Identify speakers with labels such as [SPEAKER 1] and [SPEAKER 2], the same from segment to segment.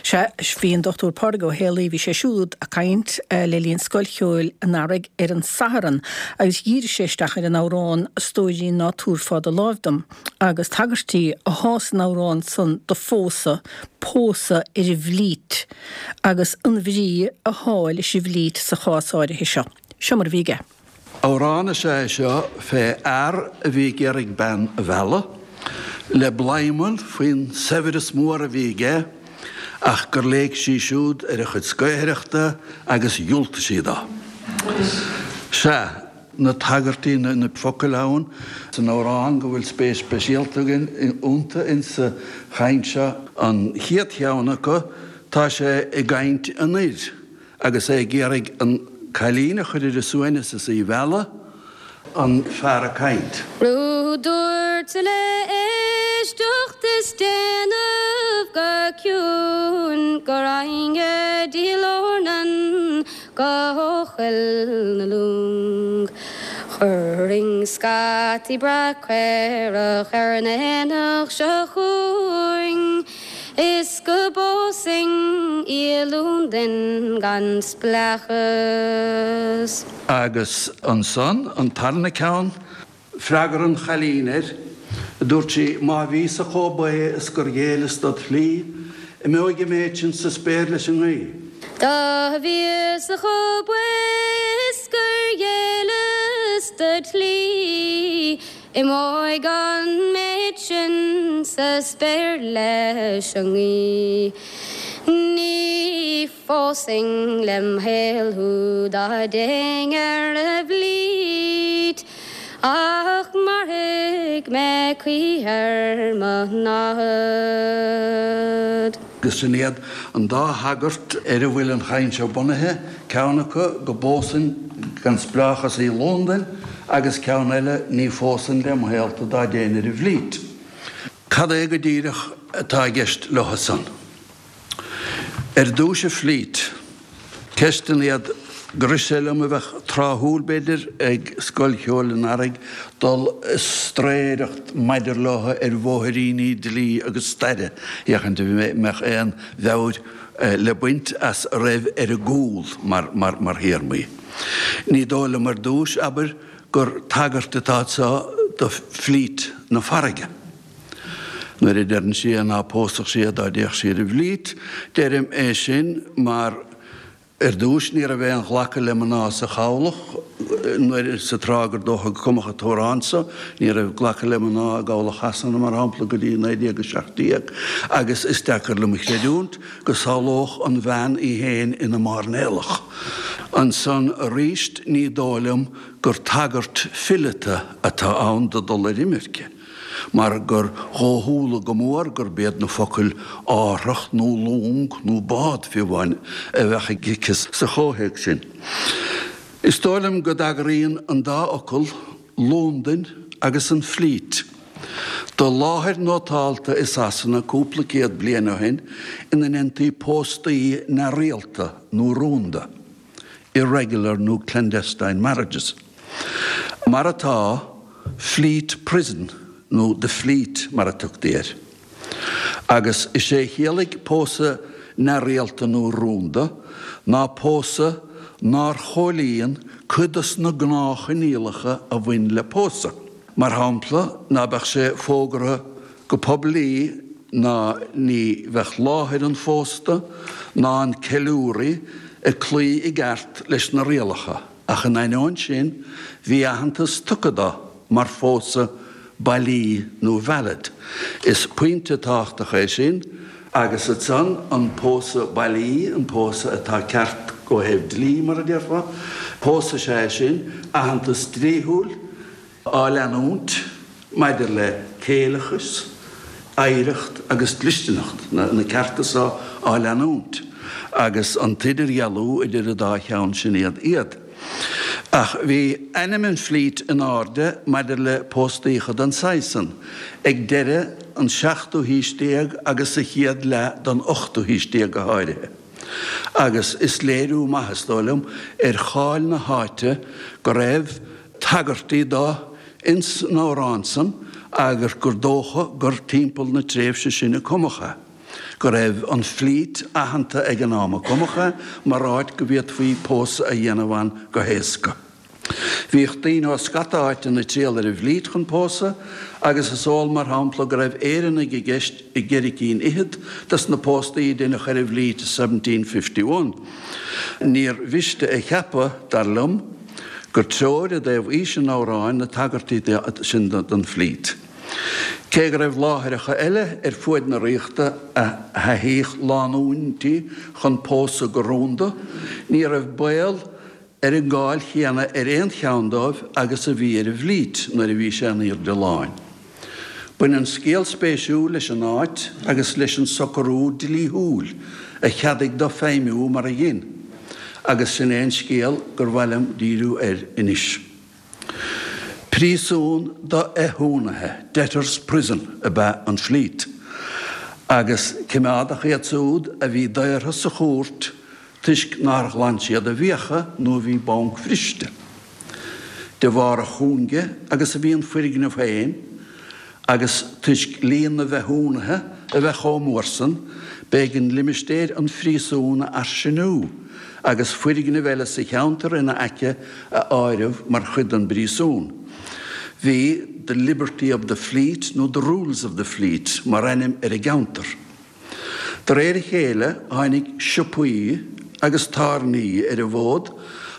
[SPEAKER 1] Sea, bhí an Dr Pádraig Ó Héalaí, bhí sé siúd ag caint le linn Scoil Cheoil an Earraigh ar an Satharn agus dhírigh sé isteach ar an amhrán 'A Stóirín Ná Tabharfá Do Láimh Dom' agus tagairtí athá san amhrán san do phósadh, pósadh ar an bhflít agus an bhrí athá leis an bhflít sa chás áirithe seo. Seo mar a bhí aige.
[SPEAKER 2] Amhrán is ea é seo fé fhear a bhí ag iarraidh bean a mhealladh, le bladhmann faoin saibhreas mór a bhí aige ach gur léig sí siúd ar a chuid scaothaireachta agus dhiúltaigh sí dó. Sea, na tagairtí, na focail ann san amhrán go bhfuil spéis speisialta againn iontu insa chaint seo. An chéad cheann acu, tá sé i gcaint an fhir. Agus é ag iarraidh an cailín a chur ar a suaimhneas is í a mhealladh, an fear ag caint.
[SPEAKER 3] Rud dúirt le éisteacht is déanamh go ciúin go raghainn go dtí Lornan go Coill na Long. Chuirfinn scataí breá caorach ar an aonach seo chugainn. Is go bpósfainn í i Londain gan spleáchas.
[SPEAKER 2] Agus ansan, an tarna ceann, freagra an chailín air, dúirt sí, Má bhíos-sa chomh baoth is gur ghéilleas dod shlí, imeoidh an méid sin sa spéir leis an ngaoth.
[SPEAKER 3] Dá bhíos-sa chomh baoth is gur ghéilleas dod shlí, Imeoidh an méid sin sa spéir leis an ngaoth. Ní phósfainn lem shaol thú dá dtéinn ar an bhflít, ach mairfidh mé choíche ar mo námhaid.
[SPEAKER 2] Agus sin iad an dá thagairt ar a bhfuil an chaint seo bunaithe, ceann acu go bpósfainn gan spleáchas í i Londain agus ceann eile ní phósfainn lem shaol tú dá dtéinn ar an bhflít. Cad é go díreach atá i gceist leo san? Ar dtúis an flít. Ceisteanna iad gur rith sé liom a bheadh tráthúil, b'fhéidir, ag Scoil Cheoil an Earraigh dul ag straeireacht maidir leo ar bhóithríní dlí agus staire, féachaint an mbeadh aon mheabhair le baint as a raibh ar a gcúl mar théarmaí. Ní dóigh liom ar dtús, abair, gur tagairt atá anseo do flít na farraige. Nuair a deireann sí é ná pósfadh sí é dá dtéadh sí ar an bhflít, deirim é sin mar ar dtús ní raibh aon ghlacadh le mná sa chabhlach nuair, sa tráth gur dócha go cumadh an t-amhrán so, ní raibh glacadh le mná i gcabhlach Shasana mar shampla go dtí 1917 agus is deacair liom a chreidiúint go samhlódh an bhean í féin ina mairnéalach. Ansan aríst ní dóigh liom gur tagairt fileata atá ann do dul ar imirce. mar gur dhóchúla go mór gurb iad na focail árthach nó long nó bád, fiú amháin, a bheadh aici sa chomhthéacs sin. Is dóigh liom go dtagraíonn an dá fhocal, Londain agus an Fleet, do láthair nótálta i Sasana cúpla céad bliain ó shin ina ndéantaí póstaí neamhrialta nó rúnda. irregular nó clandestine marriages. Mar atá, Fleet Prison nó The Fleet mar a tugtaí air. Agus is é a chiallaigh pósadh neamhrialta nó rúnda ná pósadh nár chomhlíon cuid dos na gnáthchoinníollacha a bhain le pósadh. Mar shampla, ná beadh sé fógartha go poiblí ná ní bheadh láthair an phósta ná an ceiliúraí ag cloí i gceart leis na rialacha, ach in ainneoin sin bhí aitheantas tugtha dó mar phósadh bailí nó valid. Is pointe tábhachtach é sin, agus ansan an pósadh bailí, an pósadh atá ceart ó thaobh dlí, mar a déarfá, pósadh is ea é sin, aitheantas dlíthiúil, á leanúint maidir le céileachas, oidhreacht agus dlisteanacht, na cearta so á leanúint, agus an t-idirdhealú idir an dá cheann sin iad iad. Ach bhí ainm an Fleet in airde maidir le póstaíocha den saghas san ag deireadh an seachtú haois déag agus sa chéad leath den ochtú haois déag go háirithe. Agus is léiriú maith, is dóigh liom, ar cháil na háite go raibh tagairtí do ins an amhrán san agus gur dócha gur timpeall na tréimhse sin a cumadh é. Go raibh an Fleet aitheanta ag an am a cumadh é mar áit go bhféadfaí pósadh a dhéanamh ann go héasca. Bhíodh daoine ó scata áiteanna ag triall ar an bhFleet chun pósadh agus is eol mar shampla go raibh Éireannaigh i gceist i gceithre cinn fhichead dos na póstaí a deineadh ar an bhFleet i 1751. Níor mhiste a cheapadh, dar liom, gur treoir i dtaobh aois an amhráin na tagairtí sin don Fleet. Cé go raibh láithreacha eile ar fuaid na ríochta a thaithíodh lánúintí chun pósadh go rúnda, ní raibh baol ar an gcáil chéanna ar aon cheann dóibh agus a bhí ar an bhFleet nuair a bhí sé in aoirde láin. Baineann scéal spéisiúil leis an áit agus leis an socrú dlíthiúil a cheadaigh dó feidhmiú mar a dhein, agus sin é an scéal gur mhaith liom díriú air anois. Príosún do fhéichiúnaithe, debtors' prison, ab ea an Fleet, agus coimeádadh iad siúd a bhí daortha sa chúirt toisc nár ghlan siad a bhfiacha nó a bhí bancbhriste. De bharr a chúinge agus a bhí an foirgneamh féin, agus toisc líon na bhféichiúnaithe a bheith chomh mór san, b'éigean limistéir an phríosúin a fhairsingiú agus foirgnimh eile sa cheantar ina aice a áireamh mar chuid den bpríosún. Bhí The Liberty of the Fleet nó The Rules of the Fleet mar ainm ar an gceantar. De réir a chéile tháinig siopaí agus tábhairní ar an bhfód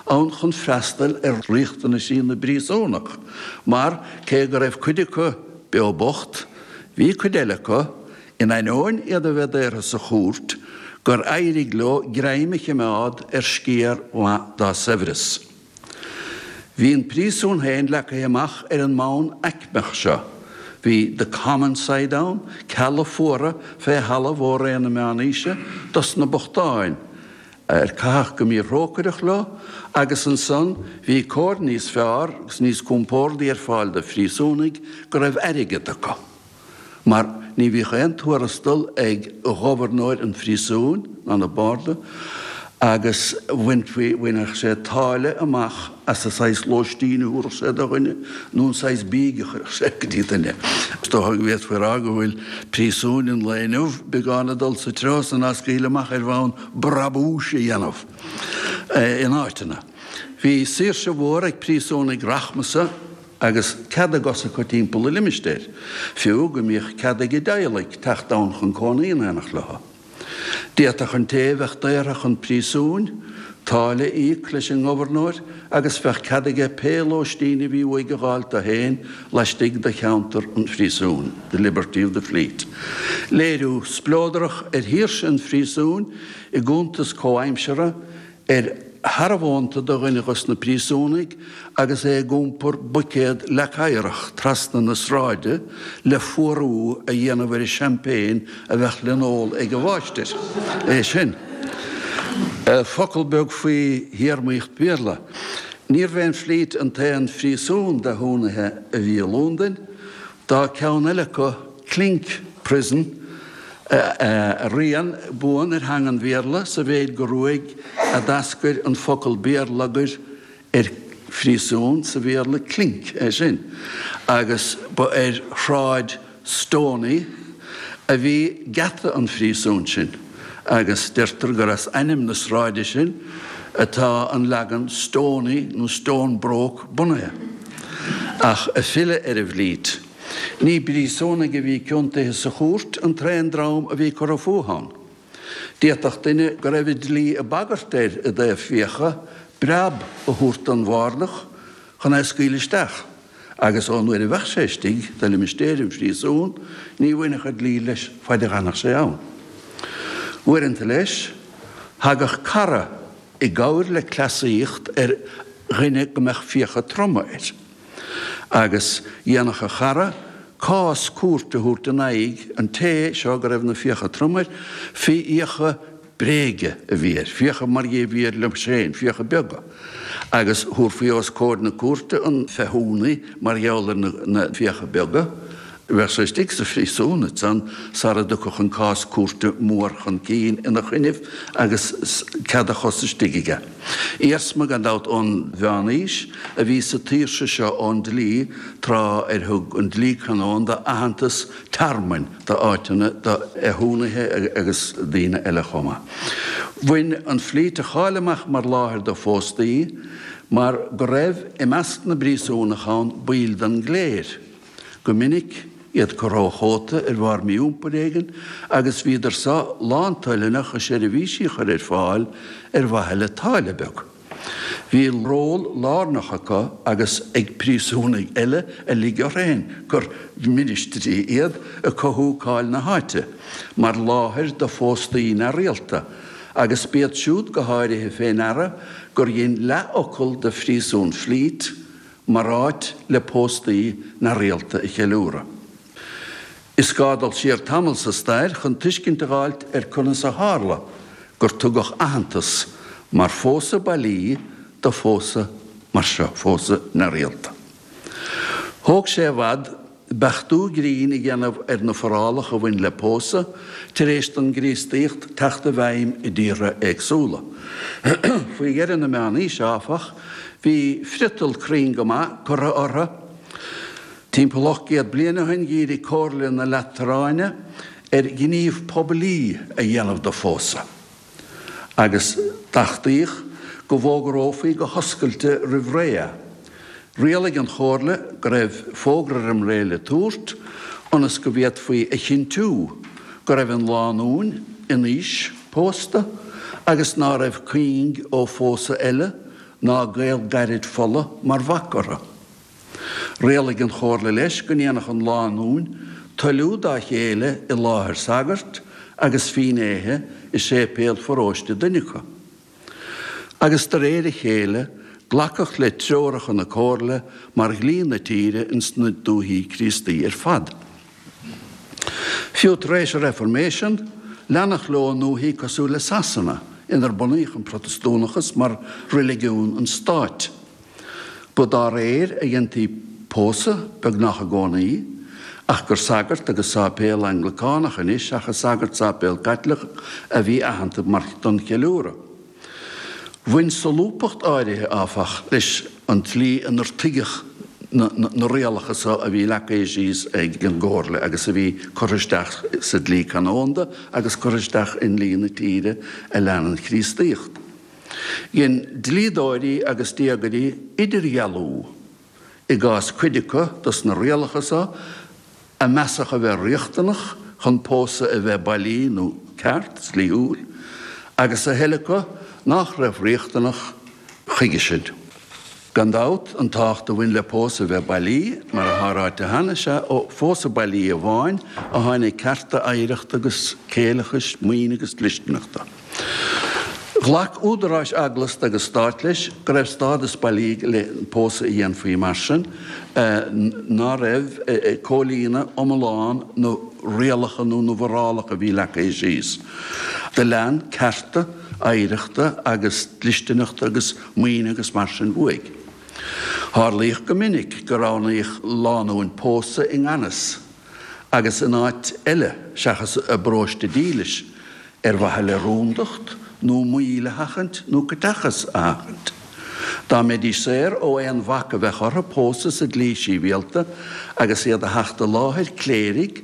[SPEAKER 2] ann chun freastal ar riachtanaisí na bpríosúnach mar, cé go raibh cuid acu beo bocht, bhí cuid eile acu, in ainneoin iad a bheith daortha sa chúirt, gur éirigh leo greim a chimeád ar sciar mhaith dá saibhreas. Bhí an príosún féin leagtha amach ar an mbonn aicmeach seo. Bhí the common side ann, cealla fuara fé thalamh ó ré na meánaoise dos na bochtáin, ar caitheadh go míthrócaireach leo, agus ansan bhí cóir níos fearr agus níos compórdaí ar fáil do phríosúnaigh go raibh airgead acu. mar ní bhíodh aon tuarastal ag gobharnóir an phríosúin ná na barda agus bhainfí, bhainfeadh sé táille amach as an saghas lóistín a thabharfadh sé do dhuine nó an saghas bídh a chuirfeadh sé go dtí duine. Is dócha go bhféadfaí a rá go bhfuil príosúin an lae inniu beagán ag dul sa treo san á scaoileadh amach ar bhonn brabúis a dhéanamh in áiteanna. Bhí saoirse mhór ag príosúnaigh rachmasa agus cead a gcos acu timpeall an limistéir, fiú go mbíodh cead ag a dteaghlaigh teacht ann chun cónaí in éineacht leo. D'fhéadfadh an té a bheadh daortha chun príosúin, táille a íoc leis an ngobharnóir agus bheadh cead aige pé lóistín a bhí uaidh a dh'fháilt dó féin laistigh de cheantar an phríosúin, the liberty of the Fleet. Léiriú spleodrach ar shaoirse an phríosúin i gcuntas comhaimseartha ar shearbhónta de dhuine dhos na príosúnaigh agus é ag iompar buicéad leac oighreach trasna na sráide le fuarú a dhéanamh ar an champagne a bheadh le n-ól ag an mháistir. É sin. Focal beag faoi théarmaíocht Bhéarla. Níorbh é an Fleet an t-aon phríosún d'fhéichiúnaithe a bhí i Lúndain. Tá ceann eile acu, Clink Prison, a rian buan ar theanga an Bhéarla sa mhéid gur uaidh a d'eascair an focal béarlagair ar phríosún sa Bhéarla clink, é sin, agus ba ar Shráid Stoney a bhí geata an phríosúin sin agus deirtear gur as ainm na sráide sin atá an leagan Stoney nó Stonebroke bunaithe. Ach ag filleadh ar an bhFleet. Ní príosúnaigh a bhí ciontaithe sa chúirt an t-aon dream a bhí curtha fúthu ann. D'fhéadfadh duine go raibh an dlí ag bagairt air i dtaobh fiacha breab a thabhairt don bhardach chun é a scaoileadh isteach, agus ón uair a bheadh sé istigh de limistéir an phríosúin ní bhainfeadh an dlí leis faid a dh'fhanfadh sé ann. Uaireanta leis, thagadh cara i gcabhair le cleasaíocht ar dhuine go mbeadh fiacha troma air. Agus dhéanfadh a chara cás cúirte a thabhairt in aghaidh an té seo go raibh na fiacha trom air, fiacha bréige a bhí air, fiacha mar a bhí air liom féin, fiacha beaga. Agus thabharfaí os comhair na cúirte an féichiúnaí mar gheall ar na fiacha beaga. Bheadh sé istigh sa phríosún ansan sara dtiocfadh an cás cúirte mór chun cinn ina choinnibh agus cead a chos istigh aige. Iarsma, gan dabht, ón Mheán-Aois a bhí sa tsaoirse seo ón dlí tráth ar thug an dlí canónda aitheantas tearmainn d'áiteanna do fhéichiúnaithe agus daoine eile chomh maith. Bhain an Fleet a cháil amach mar láthair do phóstaí mar go raibh i measc na bpríosúnach ann baill den gcléir. Go minic, iad curtha ó chóta ar bharr mí-iompair éigin agus bhíodar so lántoilteanach a seirbhísí a chur ar fáil ar mhaithe le táille beag. Bhí ról lárnach acu agus ag príosúnaigh eile a lig orthu féin gur ministrí iad ag cothú cáil na háite mar láthair do phóstaí neamhrialta agus b'iad siúd go háirithe fé ndeara gur dhein leathfhocal de phríosún Fleet mar áit le póstaí neamhrialta a cheiliúradh. Is gá dul siar tamall sa stair chun tuiscint a dh'fháilt ar conas a tharla gur tugadh aitheantas mar phósadh bailí do phósadh mar seo, phósadh neamhrialta. Thóg sé i bhfad beachtú grinn a dhéanamh ar na forálacha a bhain le pósadh tar éis don gCríostaíocht teacht i bhfeidhm i dtíortha éagsúla. Faoi dheireadh na Meánaoise, áfach, bhí friotal cruinn go maith curtha orthu. Timpeall 800 bliain ó shin dhírigh Comhairle na Lataráine ar ghníomh poiblí a dhéanamh de phósadh. agus d'achtaíodh go bhfógrófaí go hoscailte roimh ré é. Rialaigh an Chomhairle go raibh fógra roim ré le tabhairt ionas go bhféadfaí a chinntiú go raibh an lánúin in aois pósta agus ná raibh cuing ó phósadh eile ná gaol gairid fola mar bhac orthu. Rialaigh an Chomhairle leis go ndéanfadh an lánúin toiliú dá chéile i láthair sagairt agus fínnéithe i séipéal pharóiste duine acu. Agus de réir a chéile glacadh le treoracha na Comhairle mar dhlí na tíre ins na dúichí Críostaí ar fad. Fiú tar éis an Reifirméisean, leanadh leo i ndúichí cosúil le Sasana, inar bunaíodh an Protastúnachas mar reiligiún an stáit. Ba dá réir a dhéantaí pósadh, beagnach i gcónaí, ach gur sagart agus sáipéal Anglacánach anois seachas sagart sáipéal Caitliceach a bhí aitheanta mar don cheiliúradh. Bhain solúbthacht áirithe, áfach, leis an tslí inar tuigeadh na rialacha so a bhí leagtha síos ag an gComhairle agus a bhí curtha isteach sa dlí canónda agus curtha isteach i ndlí na tíre a lean an Chríostaíocht. Dhein dlíodóirí agus diagairí idirdhealú i gcás cuid acu dos na rialacha so a measadh a bheith riachtanach chun pósadh a bheith bailí nó ceart, dlíthiúil, agus a thuilleadh acu nách raibh riachtanach chuige sin. Gan dabht, an tábhacht a bhain le pósadh a bheith bailí, mar atá ráite cheana, is ea ó phósadh bailí amháin a tháinig cearta oidhreachta agus céileachais, maoine agus dlisteanachta. Ghlac údaráis eaglasta agus stáit leis go raibh stádas bailí le pósadh a dhéanfaí mar sin, ná raibh ag comhlíonadh iomlán na rialacha nó na bhforálacha a bhí leagtha síos. Do lean cearta oidhreachta agus dlisteanachta agus maoine agus mar sin uaidh. Tharlaíodh go minic go roghnaíodh lánúin pósadh i ngan fhios agus in áit eile seachas a bparóiste dílis, ar mhaithe le rúndacht nó moill a sheachaint nó caiteachas a sheachaint. Dá mbeidís saor ó aon bhac a bheadh orthu pósadh sa dlí síbhialta agus iad a theacht i láthair cléirigh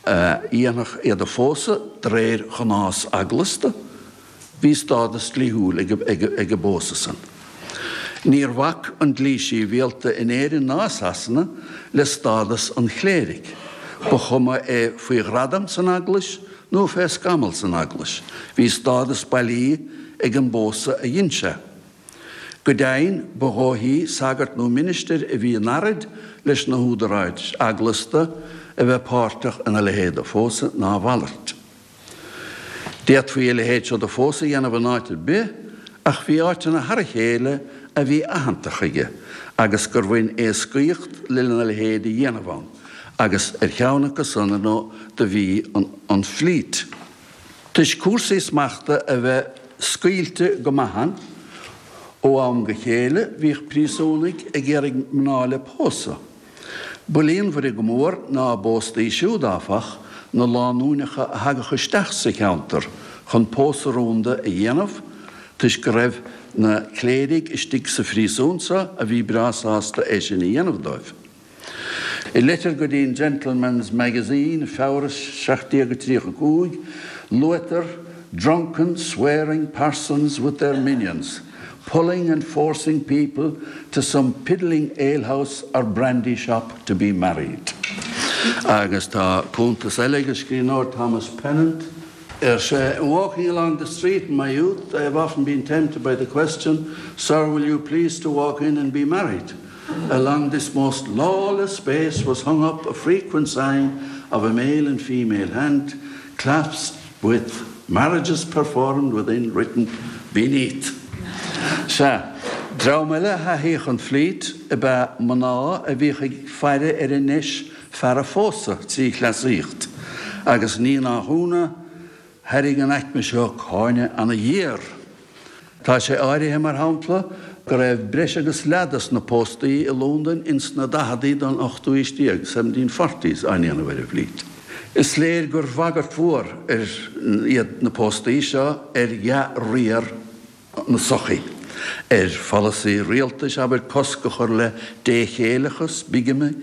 [SPEAKER 2] a dhéanfadh iad a phósadh de réir ghnás eaglasta, Bhí stádas dlíthiúil ag an bpósadh san. Níor bhac an dlí síbhialta in Éirinn ná i Sasana le stádas an chléirigh, ba chuma é faoi ghradam san Eaglais nó fé scamall san Eaglais, bhí stádas bailí ag an bpósadh a dhein sé. Go deimhin, ba dhóichí sagart nó ministir a bhí in earraid leis na húdaráis eaglasta a bheith páirteach ina leithéid de phósadh ná a mhalairt. D'fhéadfaí a leithéid seo de phósadh a dhéanamh in áit ar bith, ach bhí áiteanna thar a chéile a bhí aitheanta chuige agus gur bhain éascaíocht lena leithéid a dhéanamh ann, agus ar cheann acu san, ar ndóigh, do bhí an Fleet. Toisc cúrsaí smachta a bheith scaoilte go maith ann, ó am go chéile bhíodh príosúnaigh ag iarraidh mná le pósadh. Ba líonmhaire go mór ná a bpóstaí siúd, áfach, na lánúineacha a thagadh isteach sa cheantar chun pósadh rúnda a dhéanamh, toisc go raibh na cléirigh istigh sa phríosún so a bhí breá sásta é sin a dhéanamh dóibh. I leitir go dtí an Gentleman's Magazine, Feabhra 1735, luaitear drunken, swearing parsons with their minions, pulling and forcing people to some piddling alehouse or brandy shop to be married. Agus tá cuntas eile ag an scríbhneoir Thomas Pennant. Ar sé, In walking along the street in my youth, I have often been tempted by the question, Sir, will you please to walk in and be married? Along this most lawless space was hung up a frequent sign of a male and female hand clasped with marriages performed within written beneath. Sea, dream eile a thaithíodh an Fleet ab ea mná a bhíodh ag faire ar an ndeis fear a phósadh trí chleasaíocht, agus ní nach ionadh, thairrig an aicme seo cáineadh ana-ghéar. Tá sé áirithe, mar shampla, go raibh breis agus leath dos na póstaí i Londain ins na daicheadaí den ochtú aois déag, seventeen forties, á ndéanamh ar an bhFleet. Is léir gur bhagairt mhór ar iad na póstaí seo ar dhea-riar na sochaí, ar pholasaí rialtais, abair, cosc a chur le déchéileachas, bigamy,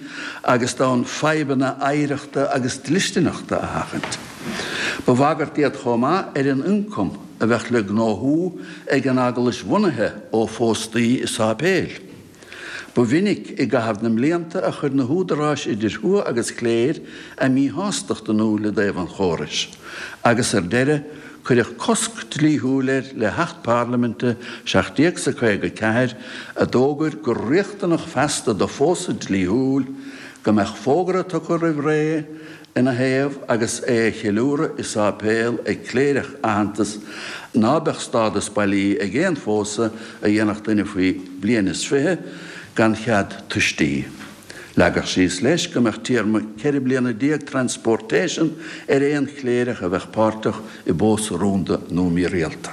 [SPEAKER 2] agus d'fhonn fadhbanna oidhreachta agus dlisteanachta a sheachaint. Ba bhagairt iad chomh maith ar an ioncam a bheadh le gnóthú ag an eaglais bhunaithe ó phóstaí i sáipéil. Ba mhinic i gcaitheamh na mblianta a chuir na húdaráis idir thuath agus chléir a míshástacht in iúl i dtaobh an chórais, agus ar deireadh cuireadh cosc dlíthiúil air le hAcht Parlaiminte 1754 a d'fhógair gur riachtanach feasta do phósadh dlíthiúil go mbeadh fógra tugtha roimh ré ina thaobh agus é a cheiliúradh i sáipéal ag cléireach aitheanta ná beadh stádas bailí ag aon phósadh a dhéanfadh duine faoi bhliain is 20 gan chead tuistí. Leagadh síos leis go mbeadh téarma 14 bliana transportation ar aon chléireach a bheadh páirteach i bpósadh rúnda nó mírialta.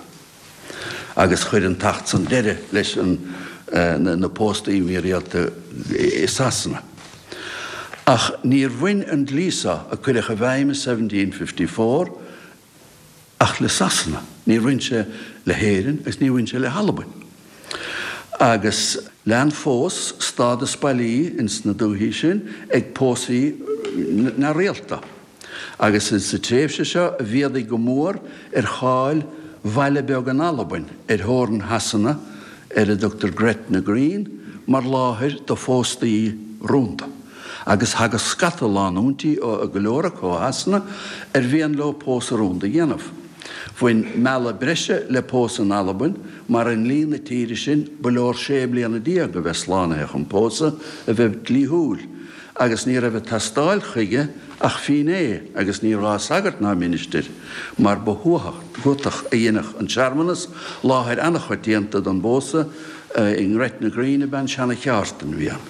[SPEAKER 2] agus chuir an tAcht san deireadh leis na póstaí mírialta i Sasana. Ach níor bhain an dlí seo, a cuireadh i bhfeidhm i 1754, ach le Sasana. Níor bhain sé le hÉirinn agus níor bhain sé le hAlbain. Agus lean fós stádas bailí ins na dúichí sin ag pósaí neamhrialta. Agus is sa tréimhse seo a mhéadaigh go mór ar cháil bhaile beag in Albain, ar theorainn Shasana, ar a dtugtar Gretna Green, mar láthair do phóstaí rúnda. Agus thagadh scata lánúintí, go leor acu ó Shasana, ar mhian leo pósadh rúnda a dhéanamh. Bhain mealladh breise le pósadh in Albain, mar i ndlí na tíre sin ba leor sé bliana déag a bheith slánaithe chun pósadh a bheith dlíthiúil, agus ní raibh ag teastáil chuige ach fínné agus ní raibh sagart ná ministir, mar ba thuatach a dheineadh an searmanas, láthair an-choitianta don bpósadh i nGretna Green ab ea an seana-cheártain bhí ann.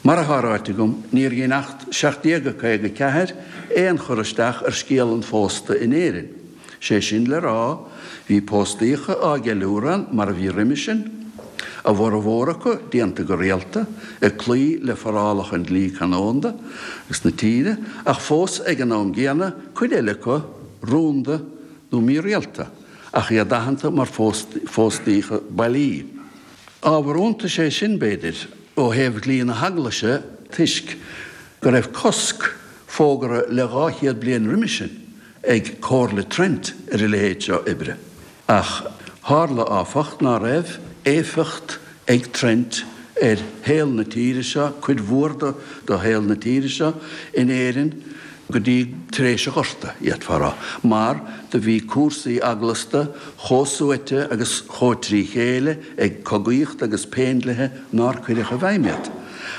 [SPEAKER 2] Mar atá ráite agam, níor dhein Acht 1754 aon chur isteach ar scéal an phósta in Éirinn. Sé sin le rá, bhí póstaíocha á gceiliúradh ann mar a bhí roimhe sin, a bhformhór acu déanta go rialta, ag cloí le forálacha an dlí canónda agus na tíre, ach fós ag an am gcéanna, cuid eile acu rúnda nó mírialta, ach iad aitheanta mar phóstaíocha bailí. Ábhar iontais é sin, b'fhéidir, ó thaobh dhlí na hEaglaise toisc go raibh cosc fógartha le 200 bliain roimhe sin ag Comhairle Trent ar a leithéid seo oibre. Ach tharla, áfach, ná raibh éifeacht ag Trent ar shaol na tíre seo, cuid mhór de shaol na tíre seo, in Éirinn go dtí tar éis an Ghorta, d'fhéadfá a rá, mar do bhí cúrsaí eaglasta chomh suaite agus chomh trí chéile ag cogaíocht agus péindlithe nár cuireadh i bhfeidhm iad.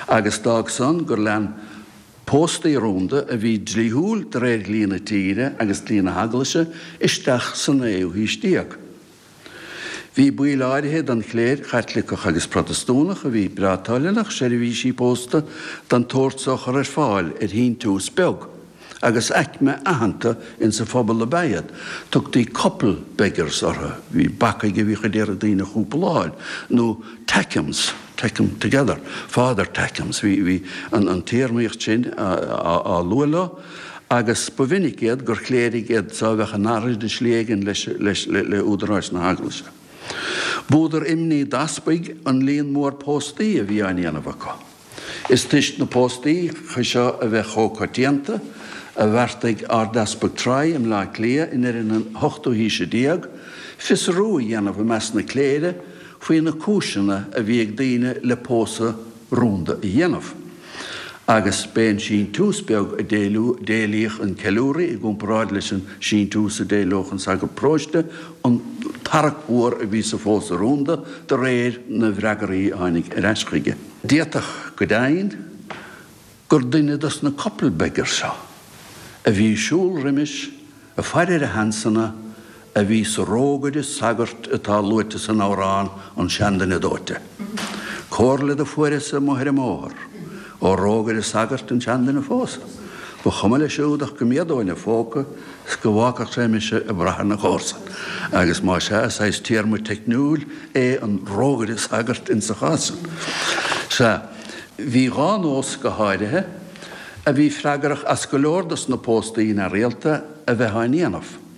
[SPEAKER 2] Agus d'fhág san gur lean Póstaí rúnda a bhí dlíthiúil de réir dhlí na tíre agus dlí na hEaglaise isteach sa naoú haois déag. Bhí baill áirithe den chléir Chaitliceach agus Protastúnach a bhí breá toilteanach seirbhísí pósta den tsórt so a chur ar fáil ar shíntiús beag, agus aicme aitheanta insa phobal ab ea iad. Tugtaí couple beggars orthu, bhí bacaigh a bhíodh ag iarraidh daoine a chúpláil, nó tackems. Take 'em together, Father take 'em. Bhí an téarmaíocht sin á lua leo agus ba mhinic iad gur chléirigh iad so a bheadh in earraid i slí éigin le údaráis na hEaglaise. B'údar imní d'easpaig an líon mór póstaí a bhí á ndéanamh acu. Is toisc na póstaí seo a bheith chomh coitianta, a bheartaigh Ardeaspag Troy i mBleá Cliath i ndeireadh na hochtú haoise déag, fiosrú a dhéanamh i measc na cléire faoi na cúiseanna a bhí ag daoine le pósadh rúnda a dhéanamh. Agus b'é an síntiús beag a d'éilíodh an ceiliúraí i gcomparáid leis an síntiús a d'éileodh an sagart paróiste an tarrac mhór a bhí sa phósadh rúnda de réir na bhfreagraí a tháinig ar ais chuige. D'fhéadfadh go deimhin gur duine dos na couple beggars seo a bhí ag siúl roimis ag faire ar a sheansanna a bhí sa rógaire sagairt atá luaite san amhrán An Seanduine Dóite. Comhairle do fuaireas amuigh ar an mbóthar ó rógaire sagairt an seanduine a phósadh. Ba chuma leis siúd ach go méadóinn a phóca 's go bhfágfadh sé mise ag brath ar na comharsain. Agus más ea, is saghas téarma teicniúil é an rógaire sagairt insa chás san. Sea, bhí dhá nós go háirithe a bhí freagrach as go leor dos na póstaí neamhrialta a bheith á ndéanamh.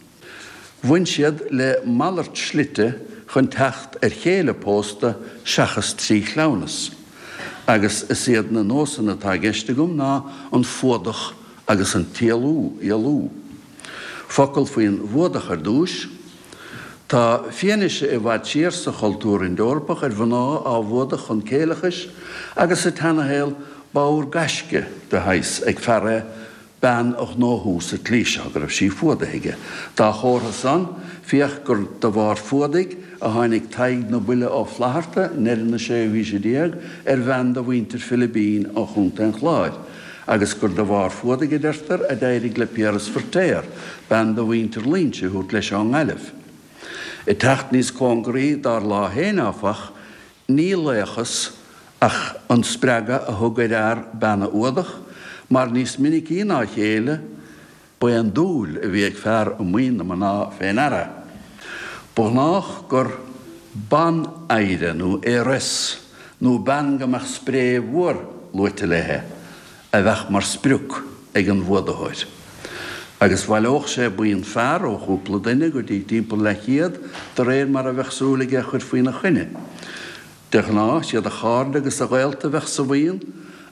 [SPEAKER 2] Bhain siad le malairt slite chun teacht ar chéile pósta seachas trí chleamhnas. Agus is iad na nósanna atá i gceist agam ná an fuadach agus an t-éalú, éalú. Focal faoin bhfuadach ar dtúis. Tá fianaise i bhfad siar sa chultúr Ind-Eorpach ar mhná á bhfuadach chun céileachais agus sa tseanashaol b'ábhar gaisce de shaghas ag fear é bean a ghnóthú sa tslí seo, go raibh sí fuadaithe aige. Dá chomhartha san, féach gur de bharr fuadaigh a tháinig Tadhg na Buile Ó Flaithearta i ndeireadh na séú haoise déag ar bhean de mhuintir Philibín ó Chontae an Chláir, agus gur de bharr fuadaigh, a deirtear, a d'éirigh le Piaras Feirtéar bean de mhuintir Loingsigh a thabhairt leis ón nGaillimh. Ag teacht níos cóngaraí dár lá féin, áfach, Ní laochas ach an spreagadh a thug ar fhear bean a fhuadach, mar níos minicí ná a chéile, ba é an dúil a bhí ag fear i maoin na mná fé ndeara. Ba ghnách gur ban-oidhre nó heiress, nó bean go mbeadh spré mhór luaite léi, a bheadh mar sprioc ag an bhfuadaitheoir. Agus bhaileodh sé buíon fear, ó chúpla duine go dtí timpeall leathchéad, de réir mar a bheadh súil aige a chur faoina choinne. De ghnáth, siad a chairde agus a ghaolta a bheadh sa bhuíon,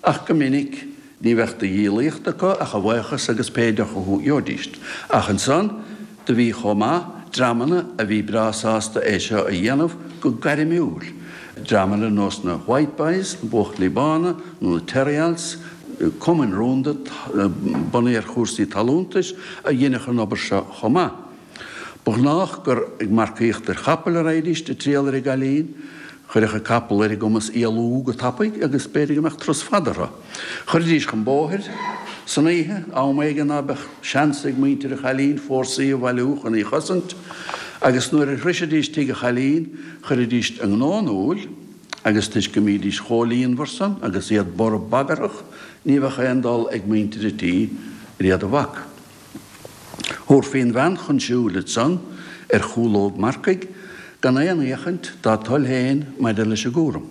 [SPEAKER 2] ach go minic, ní bheadh de dhíolaíocht acu ach a bhuíochas agus pé deoch a gheobhaidíst. Ach ansan, Do bhí chomh maith dreamanna a bhí breá sásta é seo a dhéanamh go gairmiúil, dreamanna ar nós na White Boys, na Buachaillí Bána, nó na Terryals, cumainn rúnda bunaithe ar chúrsaí talúntais, a dheineadh an obair seo chomh maith. Ba ghnách gur ag marcaíocht ar chapaill a raghaidíst ag triall ar an gcailín. Chuirfeadh an capall ar a gcumas éalú go tapaidh agus b'fhéidir go mbeadh turas fada orthu. Chuiridís chun bóthair san oíche, am éigin ná beadh seans ag muintir an chailín fórsaí a bhailiú chun í chosaint, agus nuair a shroisidís tigh an chailín, chuiridís a ngnó in iúl, agus toisc go mbídís chomh líonmhar san agus iad borb bagarthach, ní bheadh aon dul ag muintir an tí ar iad a bhac. Thabharfaí an bhean chun siúil ansan ar chúlóg marcaigh gan aon fhéachaint dá toil féin maidir leis an gcúram.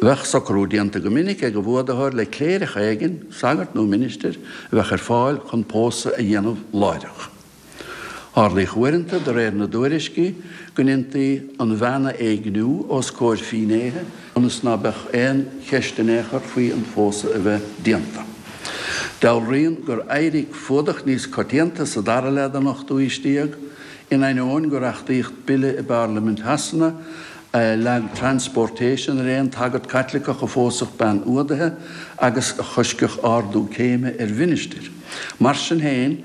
[SPEAKER 2] Bheadh socrú déanta go minic ag an bhfuadaitheoir le cléireach éigin, sagart nó ministir, a bheadh ar fáil chun pósadh a dhéanamh láithreach. Tharlaíodh uaireanta, de réir na dtuairiscí, go ndéantaí an bhean a éigniú os comhair fínnéithe ionas ná beadh aon cheist in aon chor faoi an phósadh a bheith déanta. Dealraíonn gur éirigh fuadach níos coitianta sa dara leath den ochtú haois déag, in ainneoin gur achtaíodh bille i bParlaimint Shasana a leag transportation ar aon tsagart Caitliceach a phósfadh bean fhuadaithe agus a choiscfeadh ardú céime ar mhinistir. Mar sin féin,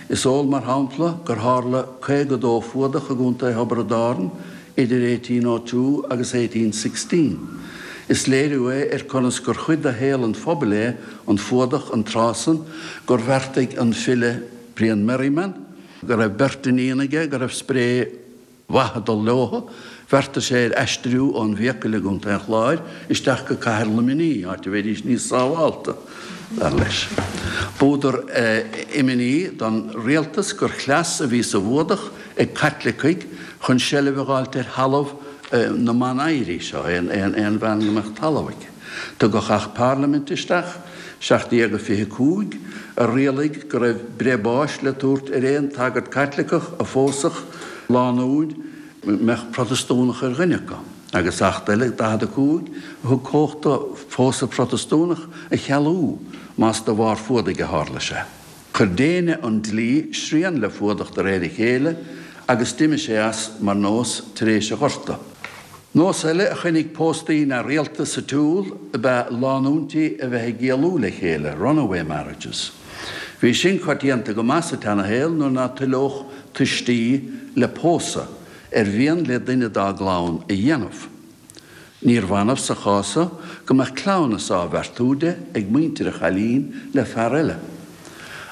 [SPEAKER 2] is eol mar shampla gur tharla 52 fuadach i gContae Thiobraid Árann idir 1802 agus 1816. Is léiriú é ar conas gur chuid de shaol an phobail é an fuadach an tráth san gur bheartaigh an file Brian Merriman, go raibh beirt iníon aige go raibh spré mhaith ag dul leothu, bheartaigh sé ar aistriú ón bhFiacail i gContae an Chláir isteach go cathair Luimnigh, áit a bheidís níos sábhálta, dar leis. B'údar imní don rialtas gur chleas a bhí sa bhfuadach ag Caitlicigh chun seilbh a dh'fháilt ar thalamh. na mban-oidhrí seo, aon bhean go mbeadh talamh aici. Tugadh Acht Parlaiminte isteach, 1725, a rialaigh go raibh breith báis le tabhairt ar aon tsagart Caitliceach a phósfadh lánúin a mbeadh Protastúnach ar dhuine acu, agus Acht eile, 45, a thug cumhacht do phósadh Protastúnach a chealú más de bharr fuadaigh a tharla sé. Chuir déine an dlí srian le fuadach de réir a chéile agus d'imigh sé as mar nós tar éis an Ghorta. Nós eile a choinnigh póstaí neamhrialta sa tsiúl ab ea lánúintí a bheith ag éalú le chéile, runaway marriages. Bhí sin coitianta go maith sa tseanashaol nuair ná toileodh tuistí le pósadh ar mhian le duine dá gclann a dhéanamh. Níorbh annamh sa chás so go mbeadh cleamhnas á bheartú di ag muintir an chailín le fear eile.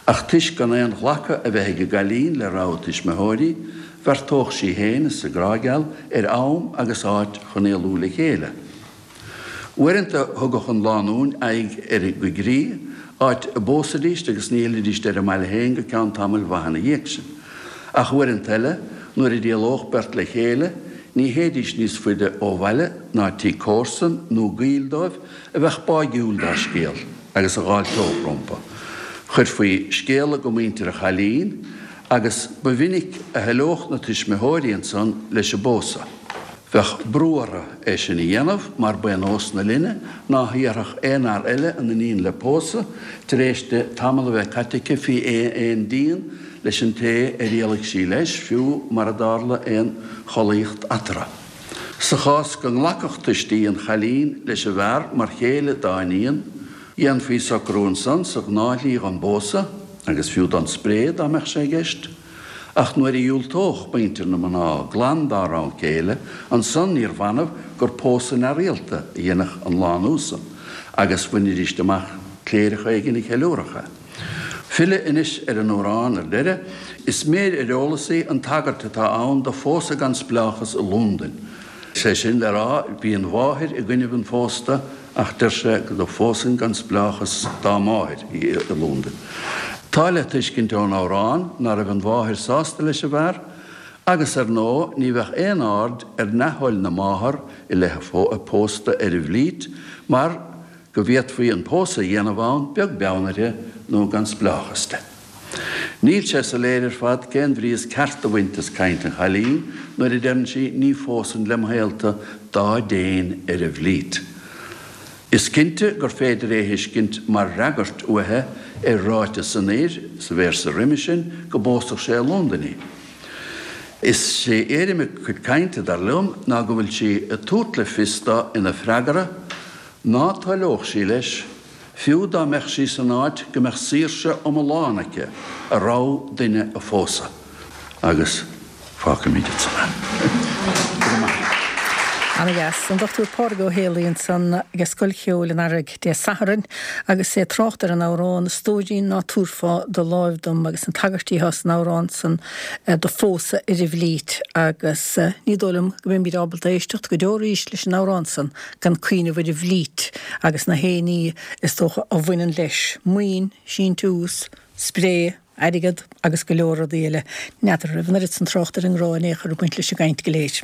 [SPEAKER 2] Ach toisc gan aon ghlacadh a bheith ag an gcailín le rogha a tuismitheoirí, bheartódh sí féin is a grá geal ar am agus áit chun éalú le chéile. Uaireanta thugadh an lánúin aghaidh ar an gcoigrích, áit a bpósaidíst agus ní fhillidíst ar a mbaile féin go ceann tamaill mhaith ina dhiaidh sin. Ach uaireanta eile, nuair a d'éalódh beirt le chéile, ní théidís níos faide ó bhaile ná tigh comharsan nó gaoil dóibh a bheadh báigiúil dá scéal agus a dh'fháilteodh rompu. Chuirfí scéala go muintir an chailín agus ba mhinic a thoileodh na tuismitheoirí ansan leis an bpósadh. Bheadh brú orthu é sin a dhéanamh mar ba é nós na linne ná hiarrfadh aon fhear eile a n-iníon le pósadh tar éis di tamall a bheith caite aici faoi aon díon leis an té ar éalaigh sí leis, fiú mara dtarla aon chollaíocht eatarthu. Sa chás go nglacfadh tuistí an chailín leis an bhfear mar chéile dá iníon, dhéanfaí socrú ansan sa ghnáthshlí dhon bpósadh, agus fiú don spré dá mbeadh sé i gceist. Ach nuair a dhiúltódh muintir na mná glan dá rogha céile, ansan níorbh annamh gur pósadh neamhrialta a dhéanfadh an lánúin san, agus bhainidíst amach cléireach éigin a cheiliúrfadh é. Filleadh anois ar an amhrán ar deireadh, is méir ar eolas í an tagairt atá ann do phósadh gan spleáchas i Lúndain. Sé sin le rá, bhí an mháthair i gcoinnibh an phósta ach deir sé go phósfainn gan spleáchas dá máthair í i Lúndain. Tá le tuiscint ón amhrán ná raibh an mháthair sásta leis an bhfear agus ar ndóigh ní bheadh aon aird ar neamhthoil na máthar i leith a pósta ar an bhFlít mar go bhféadfaí an pósadh a dhéanamh ann beag beann uirthi nó gan spleáchas di. Níl sé soiléir ar fad cén bhrí is ceart a bhaint as caint an chailín nuair a deireann sí 'ní phósfainn lem shaolta dá dtéinn ar an bhFlít'. Is cinnte gur féidir é a thuiscint mar fhreagairt uaithi ar ráiteas an fhir sa véarsa roimhe sin go bpósfadh sé i Londain í. Is é éirim a cuid cainte, dar liom, ná go bhfuil sí ag tabhairt le fios dó ina freagra ná toileodh sí leis, fiú dá mbeadh sí san áit go mbeadh saoirse iomlán aici a rogha duine a phósadh. Agus fágfaimid ansan é. Go raibh maith agat.
[SPEAKER 1] Ana-dheas. An Dr Pádraig Ó Héalaí ansan ag Scoil Cheoil an Earraigh Dé Sathairn agus é ag trácht ar an amhrán 'A stóirín ná tabharfá do láimh dom' agus na tagairtí atá san amhrán san do phósadh ar an bhFlít agus ní dóigh liom go mbeimid ábalta éisteacht go deo arís leis an amhrán san gan cuimhneamh ar an bhFlít agus na haon ní is dócha a bhaineann leis, maoin, síntiús, spré, airgead agus go leor rudaí eile. N'fheadar an raibh an oiread san trácht ar an ngrá in aon chor ag baint leis an gcaint go léir.